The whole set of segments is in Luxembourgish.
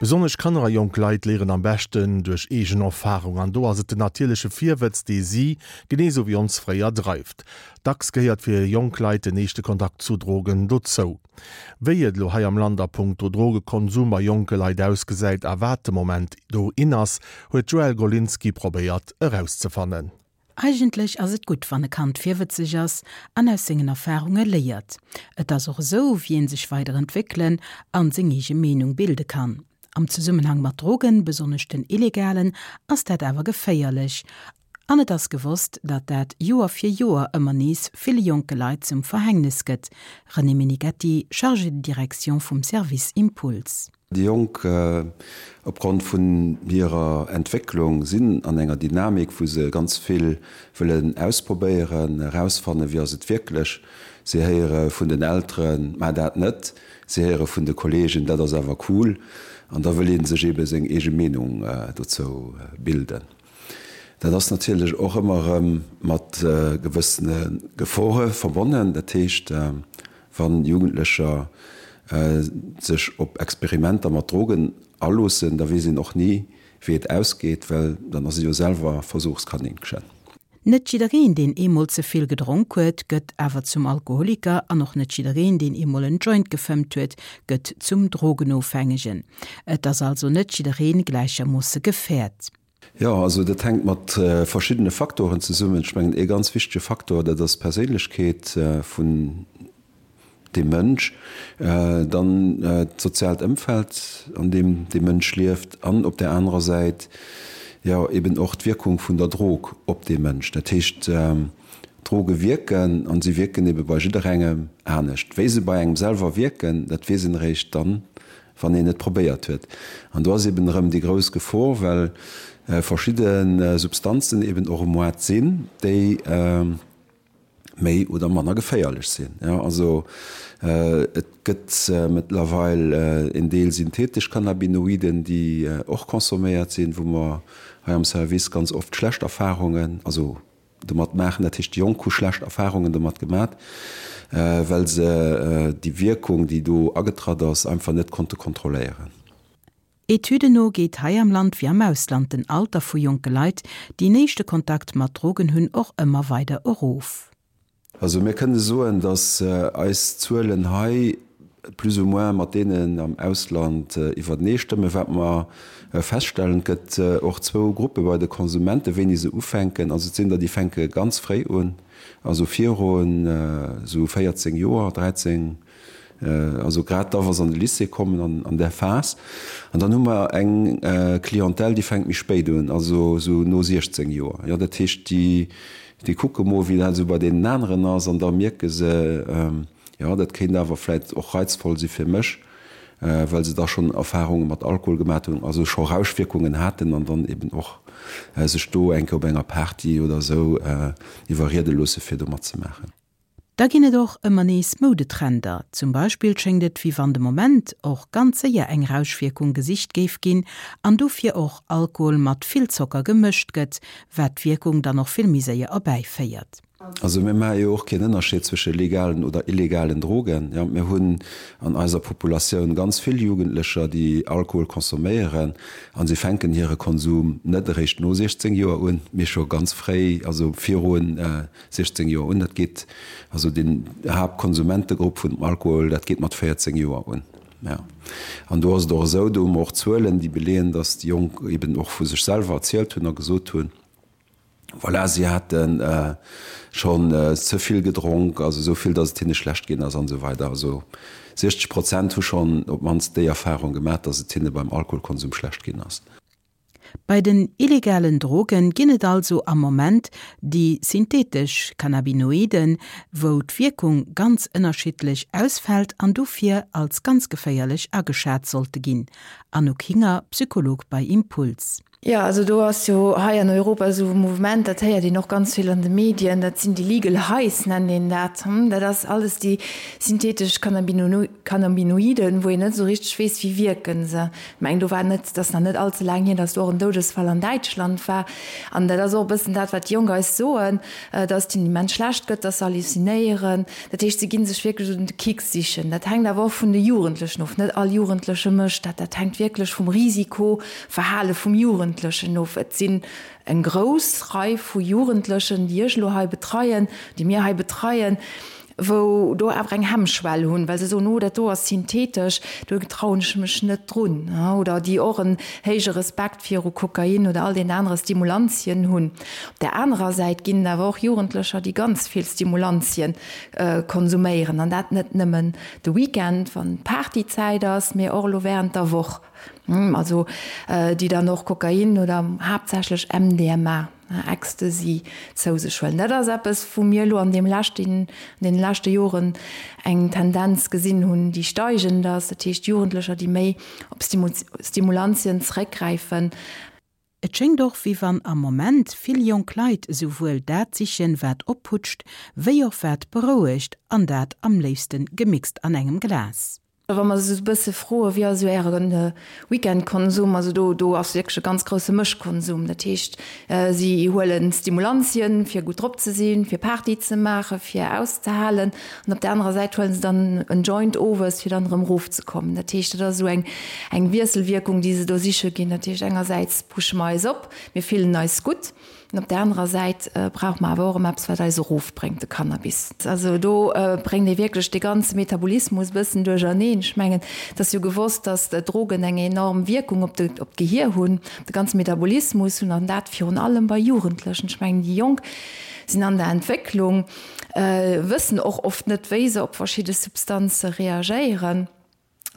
Besonnesch Kanner a jonk Leit léieren am beschten duerch eegen Erfarung an do ass et den natierleche Virwëtz, dee si, genee sou wéi ons fréier, dreift. Dacks gehéiert fir jonk Leit den éischte Kontakt zu Drogen dozou. Wéi et elo hei am Land a punkto Drogekonsum bei jonke Leit ausgesäit a wat de Moment do in ass, huet d'Joëlle Golinski probéiert erauszefannen. Eigentlech ass et gutt, wann e Kand virwëtzeg ass an aus sengen Erfarunge léiert. Et ass och esou, wéi een sech weider entwéckelen an seng eege Meenung bilde kann. Am Zesummenhang mat Drogen, besonnesch den illegalen, ass dat awer geféierlech. An et ass gewosst, datt dat Joer fir Joer ëmmer nees ville jonke Leit zum Verhängnes gëtt. René Meneghetti, Chargé de direction vum Service Impuls. Déi Jonk, opgrond vun hirer Entwécklung, sinn an enger Dynamik, wou se ganz vill wëllen ausprobéieren, erausfannen, wéi ass et wierklech. Si héiere vun den Elteren, Maach dat net. Si héiere vun de Kolleegen, Dat ass awer cool. An da wëll ee sech eebe seng eege Meenung dozou bilden. Dat ass natierlech och ëmmer erëm mat gewëssene Gefore verbonnen. Dat heescht, wa Jugendlecher sech op Experimenter mat Drogen aloossen, da weess een och ni, wéi et ausgeet, well dann ass ee jo selwer Versuchskaninchen. Net jiddereen, deen eemol ze vill gedronk huet, gëtt awer zum Alkoholiker an och net jiddereen, deen eemol en Joint gefëmmt huet, gëtt zum Drogenofhängegen. Et ass also net jidderee gläichermoosse gefäert. Jo, also dat hänkt mat verschiddene Faktoren zesummen. Ech mengen, ee ganz wichtege Faktor, dat ass d'Perséinlechkeet vun deem Mënsch, dann d'soziaalt Ëmfeld, an deem dee Mënsch lieft, an op där anerer Säit, jo, eben och d'Wierkung vun der Drog op dee Mënsch. Dat heescht, Droge wierken, an si wierken ebe bei jidderengem anescht. Wéi se bei engem selwer wierken, dat weess een eréischt dann, wann een et probéiert huet. An do ass eben erëm déi grouss Gefor, well verschidde Substanzen eben och um Moart sinn, déi méi oder manner geféierlech sinn. Jo, also et gëtt mëttlerweil en Deel synthetesch Cannabinoiden, déi och consomméiert sinn, wou mer hei am Service ganz oft schlecht Erfahrungen, also domat maachen. Dat heescht, déi Jonk hu schlecht Erfahrungen domat gemat, well se déi Wierkung, déi do agetratt ass, einfach net konnte kontrolléieren. Etüden no geet hei am Land wéi am Ausland den Alter vu jonke Leit, déi en éischte Kontakt mat Drogen hunn, och ëmmer weider erof. Also mir kënne soen, datt eis Zuelen hei plus ou moins mat deenen am Ausland iwwertenee stëmmen. Wat mer feststellen, et gëtt och zwou Gruppe bei de Konsumenten, wéini se ufänken. Also et sinn der, déi fänke ganz fréi un, also virun esou 14 Joer, 13, also grad da wa se an de Lycée kommen, an an där Phas. An dann hu mer eng Clientèle, déi fänkt méi spéit un, also esou no 16 Joer. Jo, dat heescht, déi, déi kucke mol, wéi dat esou bei deenen aneren ass an da mierke se, jo, dat kéint awer vläicht och reizvoll si fir mech, well se da schonn Erfarunge mat Alkohol gemat hunn, also scho Rauschwierkungen haten an dann eben och sech do eng Kéier op enger Party oder esou iwwerriede loosse fir do matzemaachen. Da ginn et och ëmmer nees Moudetrender. Zum Beispill schéngt et wéi wann de Moment och ganz séier eng Rauschwierkung gesicht géif ginn an dofir och Alkohol mat vill Zocker gemëscht gëtt, wat d'Wierkung dann och vill méi séier erbäiféiert. Also mir maache jo och keen Ënnerscheed zwësche legalen oder illegalen Drogen. Jo, mir hunn an eiser Populatioun ganz vill Jugendlecher, déi Alkohol consomméieren a si fänken hire Konsum net eréischt no 16 Joer un, mee scho ganz fréi, also viru 16 Joer un. Dat geet, also den Haaptkonsumentegrupp vun dem Alkohol, dat geet mat 14 Joer un. Ja. An do ass et och esou, do hu mer och Zuelen, déi beleeën, datt déi Jonk eben och vu sech selwer erzielt hunn a gesot hunn, voilà, si hate schonn ze vill gedronk, also esou vill, datt et hinne schlecht ginn ass an esou weider. Also 60 Prozent hu schonn op d'mannst déi Erfarung gemaach, datt et hinne beim Alkoholkonsum schlecht ginn ass. Bei den illegalen Drogen ginn et also am Moment déi synthetesch Cannabinoiden, wou d'Wierkung ganz ënnerschiddlech ausfält an dofir als ganz geféierlech ageschat sollte ginn. Anouk Hinger, Psycholog bei Impuls. Jo, also do ass jo hei an Europa esou e Mouvement, dat héiert een och ganz vill an de Medien, dat sinn déi legal highs, nennt een dat. Dat ass alles déi synthetesch Cannabinoiden, wou een net esou richteg weess, wéi wierke se. Ech mengen, do war net, et ass nach net all ze laang hier, datt do och en Doudesfall an Däitschland war. An dat ass och e bëssen dat, wat déi Jonk eis soen, datt et hinnen immens schlecht gëtt, datt se halluzinéieren. Dat heescht, se gi sech wierklech esou den Kick sichen. Dat hänkt awer och vun de Jugendlechen of. Net all Jugendleche mécht dat. Dat hänkt wierklech vum Risiko Verhale vum Jugendlechen of. Et sinn eng grouss Rei vu Jugendlechen, déi ech elo hei betreien, déi mir hei betreien, wou do awer eng Hemmschwell hunn, well se soen, oh dat do ass synthetesch, do trauen ech mech net drun, oder déi och en héije Respekt viru Kokain oder all deenen anere Stimulantien hunn. Op där anerer Säit ginn et awer och Jugendlecher, déi ganz vill Stimulantien konsuméieren, an dat net nëmmen de Weekend, wann Partyzäit ass, mee och elo während der Woch. Also déi dann och Kokain oder haaptsächlech MDMA, Ecstasy, zou sech huelen. Dat ass eppes, wou mir elo an deem leschten, an deene leschte Joren eng Tendenz gesinn hunn, déi steigend ass. Dat heescht Jugendlecher, déi méi op Stimulantien zeréckgräifen. Et schéngt och, wéi wann am Moment vill jonk Leit esouwuel dat sichen, wat opputscht, wéi och wat berouegt, an dat am léifste gemixt an engem Glas. Wa mer se esou e bësse froen, wéi ass esou äre Weekendkonsum, also do do ass wierklech e ganz grousse Mëschkonsum. Dat heescht, si huelen Stimulantien, fir gutt drop ze sinn, fir Party ze maachen, fir auszehalen. An op där anerer Säit huele se dann en Joint owes, fir dann erëm erofzekommen. Dat heescht, dat ass esou eng eng Wiesselwierkung, déi se do siche ginn. Dat heescht, engersäits pushe mer eis op, mir fillen eis gutt. An op där anerer Säit brauche mer awer och erëm eppes, wat eis erofbréngt, de Cannabis. Also do bréngt ee wierklech dee ganze Metabolismus e bëssen duercherneen. Ech mengen, et ass jo gewosst, datt Drogen eng enorm Wierkung op de, op d'Gehier hunn, op de ganze Metabolismus hunn, an dat virun allem bei Jugendlechen. Ech mengen, déi Jonk sinn an der Entwécklung, wëssen och oft net, wéi se op verschidde Substanze reagéieren.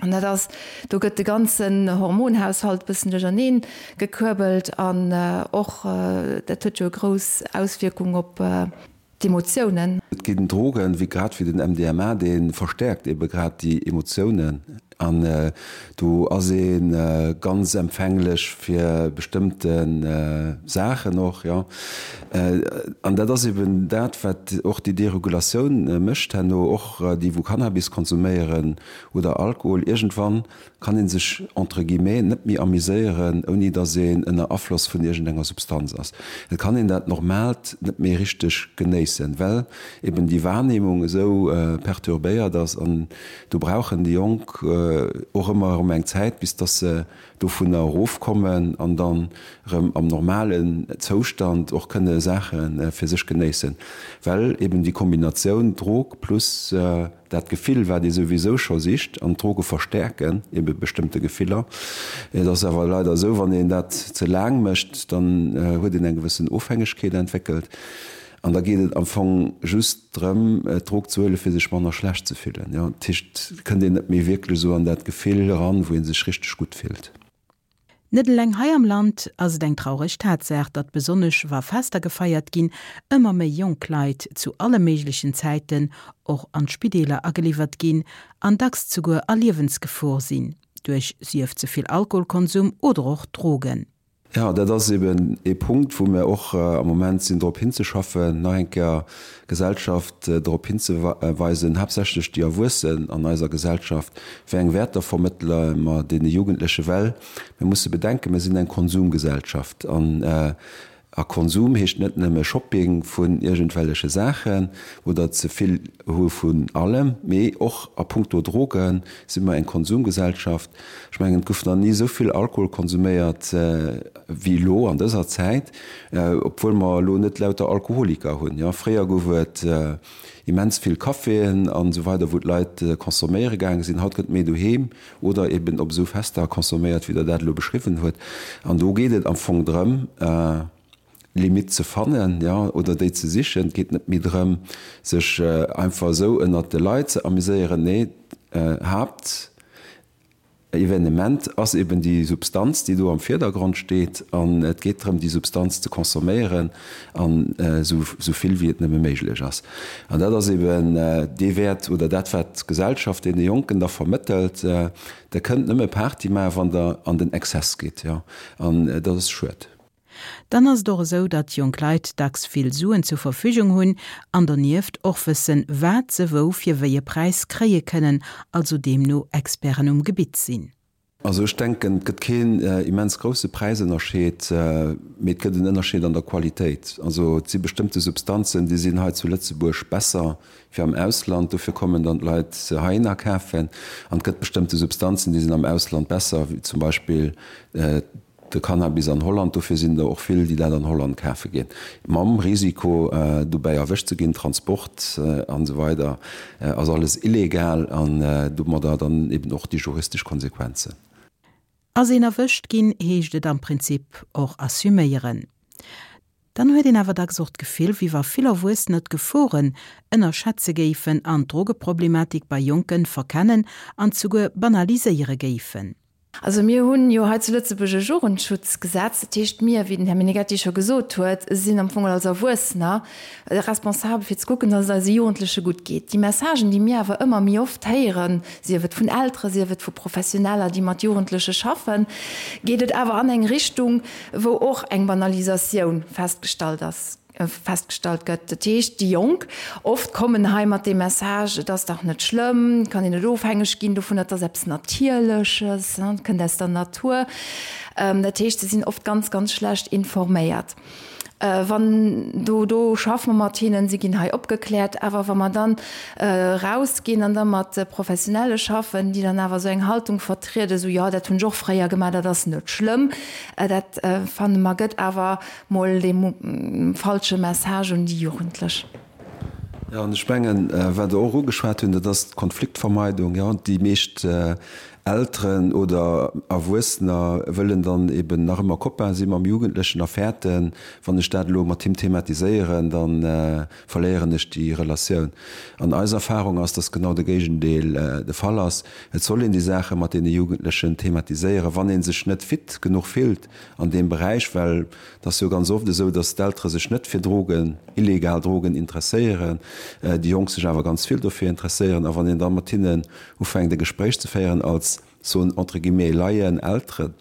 An dat ass, do gëtt de ganzen Hormonhaushalt e bëssen duercherneen gekuerbelt an och dat huet jo e grouss Auswierkung op d'Emotiounen. Et ginn Drogen, wéi grad wéi den MDMA, dee verstäerkt ebe grad déi Emotiounen an do ass ee ganz empfänglech fir bestëmmte Saachen och, jo. An dat ass eben dat, wat och déi Deregulatioun mécht herno, och déi wou Cannabis konsuméieren, oder Alkohol, iergendwann kann ee sech entre guillemets net méi amuséieren, ouni datt een ënner Afloss vun iergendenger Substanz ass. Et kann een dat Normaalt net méi richteg genéissen, well eben déi Wahrnehmung esou perturbéiert ass. An do brauchen déi Jonk och ëmmer erëm eng Zäit, bis datt se dovunner erofkommen an dann erëm am normalen Zoustand och kënne Saache fir sech genéissen, well eben déi Kombinatioun Drog plus Dat Gefill, wat ee souwisou scho sicht, an d'Droge verstäerken ebe bestëmmte Gefiller. Et ass awer leider esou, wann een dat ze laang mécht, dann huet een eng gewëssen Ofhängegkeet entwéckelt an da geet et am Fong just drëm, d'Drog ze huelen, fir sech manner schlecht ze fillen. Jo, dat heescht, et kënnt een net méi wierklech esou an dat Gefill eran, wou ee sech richteg gutt fillt. Net eleng hei am Land ass et eng traureg Tatsaach, datt besonnesch wa Fester gefeiert ginn, ëmmer méi jonk Leit zu alle méiglechen Zäiten och an d'Spideeler ageliwwert ginn an dacks zuguer a Liewensgefor sinn, duerch sief ze vill Alkoholkonsum oder och Drogen. Jo, dat ass eben ee Punkt, wou mir och am Moment sinn drop hinzeschaffen, nach eng Kéier d'Gesellschaft drop hinzeweisen, haaptsächlech déi Erwuessen an eiser Gesellschaft, wéi eng Wäerter vermëttele mer deene Jugendleche, well mir musse bedenken, mir sinn eng Konsumgesellschaft an a Konsum heescht net nëmme Shopping vun iergendwelleche Saachen oder ze vill hu vun allem, mee och a puncto Droge si mer eng Konsumgesellschaft. Ech mengen, et gouf nach ni esou vill Alkohol konsuméiert wéi elo an dëser Zäit, obwuel mer elo net lauter Alkoholiker hunn. Jo, fréier gouf et immens vill Caféen an esou weider, wou d'Leit consomméiere gaange sinn. Haut gëtt méi doheem oder eben op esou Fester consomméiert, wéi Der dat elo beschriwwen huet. An do geet et am Fong drëm, Limitt ze fannen, jo, oder déi ze sichen. Et geet net méi drëm, sech einfach esou ënnert de Leit ze amuséieren. Nee, Haapt. Evenement ass eben déi Substanz, déi do am Virdergrond steet, an et geet drëm, déi Substanz ze consomméieren an esou vill wéi et nëmme méiglech ass. An dat ass eben dee Wäert oder dat, wat d'Gesellschaft deene Jonken da vermëttelt, Der kënnt nëmme Party maachen, wann Der an den Exzess gitt. Jo, an dat ass schued. Dann ass et och esou, datt jonk Leit dacks vill Suen zur Verfügung hunn an donieft och wëssen, wat se wou fir wéi e Präis kréie kënnen, also deemno Experten um Gebitt sinn. Also ech denken, et gëtt keen immens grousse Präisënnerscheed, mee et gëtt en Ënnerscheed an der Qualitéit. Also et si bestëmmte Substanzen, déi sinn hei zu Lëtzebuerg besser wéi am Ausland, dofir kommen dann d'Leit se heihinner kafen. An et gëtt bestëmmte Substanzen, déi sinn am Ausland besser, wéi zum Beispill De Cannabis an Holland, dofir sinn der och vill, déi dat an Holland kafe ginn, mam Risiko dobäi erwëscht ze ginn, Transport an esou weider ass alles illegal an domadder dann eben och déi juristesch Konsequenzen. Ass een erwëscht ginn, heescht et am Prinzip och assuméieren. Dann huet een awer dacks och d'Gefill, wéi wa vill Erwuessener d'Geforen ënnerschätze géifen an d'Drogeproblematik bei Jonken verkennen an souguer banaliséiere géifen. Also mir hunn jo hei zu Lëtzebuerg e Jugendschutzgesetz. Dat heescht, mir, wéi den Här Meneghetti scho gesot huet, sinn am Fong als Erwuessener responsabel fir ze kucken, dass et eise Jugendleche gutt geet. Déi Messagen, déi mir awer ëmmer méi oft héieren, sief et vun Eltere, sief et vu Professioneller, déi mat Jugendleche schaffen, geet et awer an eng Richtung, wou och eng Banalisatioun festgestallt ass. Festgestallt gëtt. Dat heescht, déi Jonk oft kommen hei mat deem Message, et ass dach net schlëmm, et kann een net ofhängeg ginn dovun, et ass eppes Natierleches, et kënnt aus der Natur. Dat heescht, se sinn oft ganz, ganz schlecht informéiert. Wann do, do schaffe mer mat hinnen, si ginn hei opgekläert, awer wa mer dann erausginn an da mat Professionelle schaffen, déi dann awer esou eng Haltung vertrieden, esou, jo, dat hunn ech och fréier gemaach, dat ass net schlëmm, dat fanne mer gëtt awer Mol dee falsche Message un déi Jugendlech. Jo, an ech mengen, wat Der och ugeschwat hunn, dat ass d'Konfliktvermeidung. Jo, déi meescht Elteren oder Erwuessener wëllen dann eben nach ëmmer Copain si mam Jugendlechen a fäerten, wann ech dat elo mat him thematiséieren, da verléieren ech déi Relatioun. An eis Erfahrung ass, dass genau de Géigendeel de Fall ass. Et soll een déi Saache mat deene Jugendlechen thematiséieren, wann ee sech net fit genuch fillt, an deem Beräich, well et ass jo ganz oft esou, datt d'Eltere sech net fir Drogen, illegal Drogen interesséieren, déi Jonk sech awer ganz vill dofir interesséieren. A wann een da mat hinnen ufänkt e Gespréich ze féieren als, soen entre guillemets, Laien, Elteren,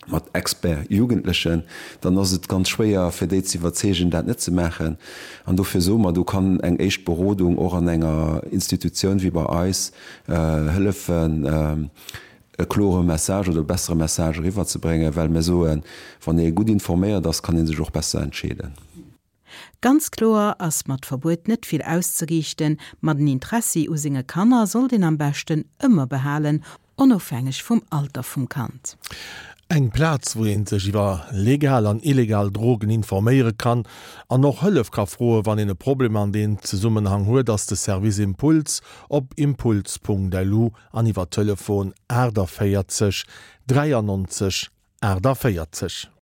mat Expert Jugendlechen, dann ass et ganz schwéier fir déi ze iwwerzeegen, dat net ze maachen. An dofir soe mer, do kann eng éischt Berodung och an enger Institutioun wéi bei eis hëllefen, e klore Message oder e bessere Message eriwwerzebréngen, well mir soen, wann ee gutt informéiert ass, kann ee sech och besser entscheeden. Ganz kloer ass mat Verbuet net vill auszeriichten, ma den Interessi u senge Kanner sollt een am beschten ëmmer behalen, onofhängeg vum Alter vum Kand. Eng Plaz, wou ee sech iwwer legal an illegal Drogen informéiere kann an och Hëllef ka froen, wann een e Problem an deem Zesummenhang huet, ass de Service Impuls op impuls.lu an iwwer Telefon 48 93 48.